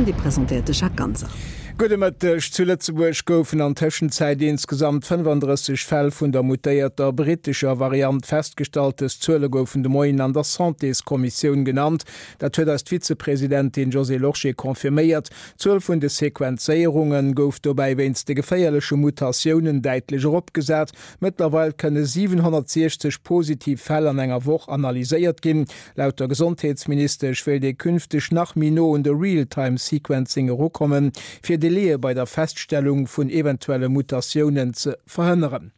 An déi presentéiert de Jacques Ganser. Gudde Mëtteg. Zu Lëtzebuerg goufen an Tëschenzäit insgesamt 35 Fäll vun der mutéierter brittescher Variant festgestallt. Dës Zuele goufen de Moien an der Santéskommissioun genannt. Dat huet eis d'Vizepresidentin Josée Lorsché confirméiert. D'Zuel vun de Sequenzéierunge gouf dobäi wéinst de geféierleche Mutatiounen däitlech eropgesat. Mëttlerweil kënne 760 positiv Fäll an enger Woch analyséiert ginn. Laut der Gesondheetsministesch wéilt ee künfteg nach méi no un de Real-Time-Sequencing erukommen, fir Delaie bei der Feststellung vun eventuelle Mutatiounen ze verhënneren.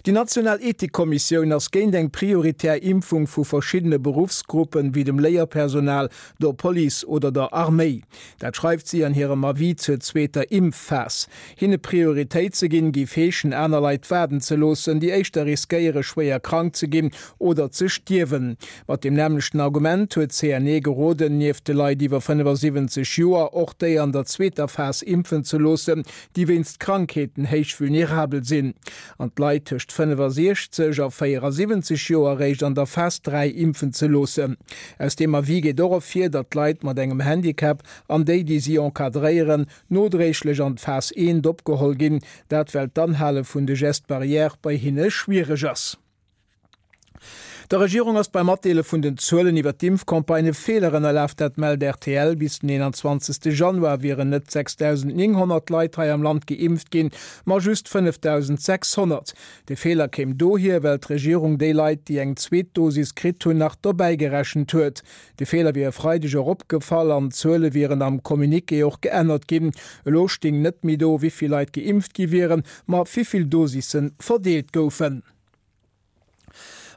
Déi national Ethikkommissioun ass géint eng prioritär Impfung vu verschiddene Beruffsgruppen, wéi dem Léierpersonal, der Police oder der Arméi. Dat schreift si an hirem Avis zur zweeter Impfphas. Hinne Prioritéit ze ginn, géif heeschen, aner Leit waarden ze loossen, déi éischter riskéiere schwéier krank ze ginn oder ze stierwen. Mat deem nämmlechten Argument huet d'CNE geroden, nieft de Leit iwwer 75 Joer och déi an der zweeter Phas impfen ze loossen, déi wéinst Krankheeten héich vulnerabel sinn, an d'Leit tëscht 65 a 74 Joer eréischt an der Phas 3 impfen ze loossen. Aus deem Avis geet och ervir, datt d'Leit mat engem Handicap an déi, déi si encadréieren, nodréiglech an d'Phas 1 opgeholl ginn, dat well d'Anhale vun de Gestes barrières bei hinne schwiereg ass. Der Regierung ass beim Matdeele vun den Zuelen iwwer d'Impfcampagne e Feeler ënnerlaf, dat mellt rtl. Bis den 21. Januar wieren net 6.900 Leit hei am Land geimpft ginn, ma just 5.600. De Feeler kéim dohier, well d'Regierung déi Leit, déi eng zweet Dosis kritt hunn, nach dobäi gerechent huet. De Feeler wier e Freideg och opgefall an d'Zuele wieren am Communiqué och geännert ginn. Elo sting net méi do, wéi vill Leit geimpft gi wieren, ma wéi vill Dosisse verdeelt goufen.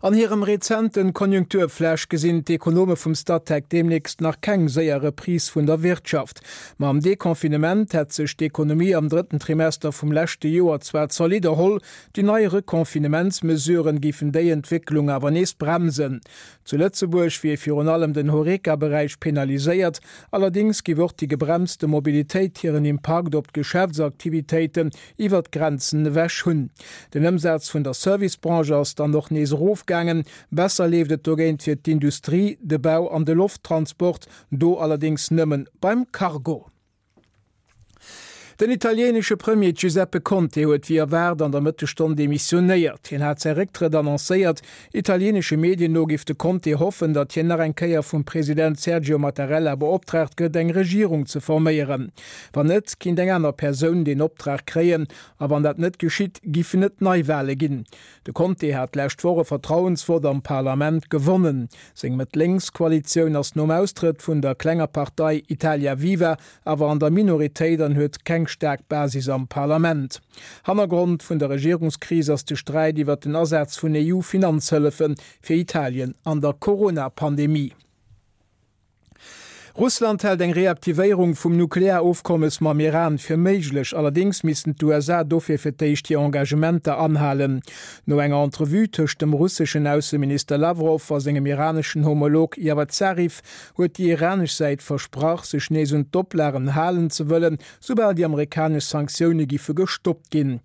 An hirem rezenten Konjunkturflash gesinn d'Ekonome vum Statec deemnächst nach keng séier Reprise vun der Wirtschaft. Mam Deconfinement hätt sech d'Ekonomie am drëtten Trimester vum leschte Joer zwar zolidd erholl, déi nei Reconfinementsmesuren géifen déi Entwécklung awer nees bremsen. Zu Lëtzebuerg wier virun allem den Horeca-Beräich penaliséiert, allerdéngs géif och déi gebremste Mobilitéit hiren Impakt op d'Geschäftsaktivitéiten iwwer d'Grenzen ewech hunn. Den Ëmsaz vun der Servicebranche ass dann och nees erofgaangen. Besser leeft et dogéint fir d'Industrie, de Bau an de Lofttransport, do allerdéngs nëmmen beim Cargo. Den italienesche Premier Giuseppe Conte huet wéi erwaart an der Mëttesstonn demissionéiert. Hien hat säi Récktrëtt annoncéiert. Italienesche Medien no géif de Conte hoffen, datt hien nach eng Kéier vum President Sergio Mattarella beoptraagt gëtt, eng Regierung ze forméieren. Wann net, kinnt eng aner Persoun deen Optrag kréien, a wann dat net geschitt, giffen et Neiwale ginn. De Conte hat d'lescht Woch e Vertrauensvott am Parlament gewonnen. Seng Mëtt-Lénks-Koalitioun ass nom Austrëtt vun der klenger Partei Italia Viva awer an der Minoritéit an huet keng staark Basis am Parlament. Hannergrond vun der Regierungskris ass de Sträit iwwer den Asaz vun EU-Finanzhëllefe fir Italien an der Corona-Pandemie. Russland hält eng Reaktivéierung vum Nuklearofkommes mam Iran fir méiglech. Allerdéngs missten d'USA dofir fir d'éischt hir Engagementer anhalen. No enger Entrevue tëscht dem russeschen Ausseminister Lawrow a sengem iraneschen Homolog Javad Zarif huet déi iranesch Säit versprach, sech nees un d'Oplagen halen ze wëllen, soubal déi amerikanesch Sanktioune giffe gestoppt ginn.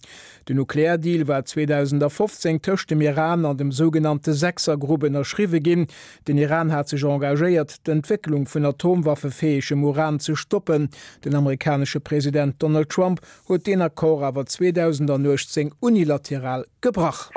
Den Nukleardeal war 2015 tëscht dem Iran an dem sougenannte Sechsergrupp ënnerschriwwe ginn. Den Iran hat sech engagéiert, d'Entwécklung vun atomwaffefäegem Uran ze stoppen. Den amerikanesche President Donald Trump huet deen Accord awer 2018 unilateral gebrach.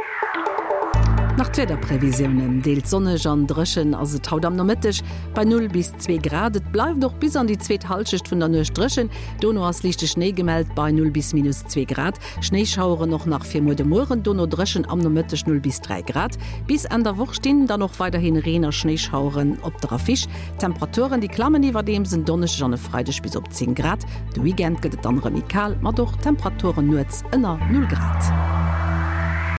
Nach d'Wiederprevisiounen, Deels sonneg an dréchen ass et haut am Nomëtteg bei 0 bis 2 Grad. Et bleift och bis an déi zweet Hallschecht vun der Nuecht dréchen. Dono ass liichte Schnéi gemellt bei 0 bis minus 2 Grad. Schnéischaueren och nach fir muer de Mueren, dono dréchen am Nomëtteg 0 bis 3 Grad. Bis Enn der Woch stinn dann och weiderhi Reen a Schnéischaueren op der Affiche. D'Temperaturen déi klammen iwwerdeems en Donneschdeg an e Freideg bis op 10 Grad. De Weekend gëtt et dann erëm méi kal, mat och Temperaturen nuets ënner 0 Grad.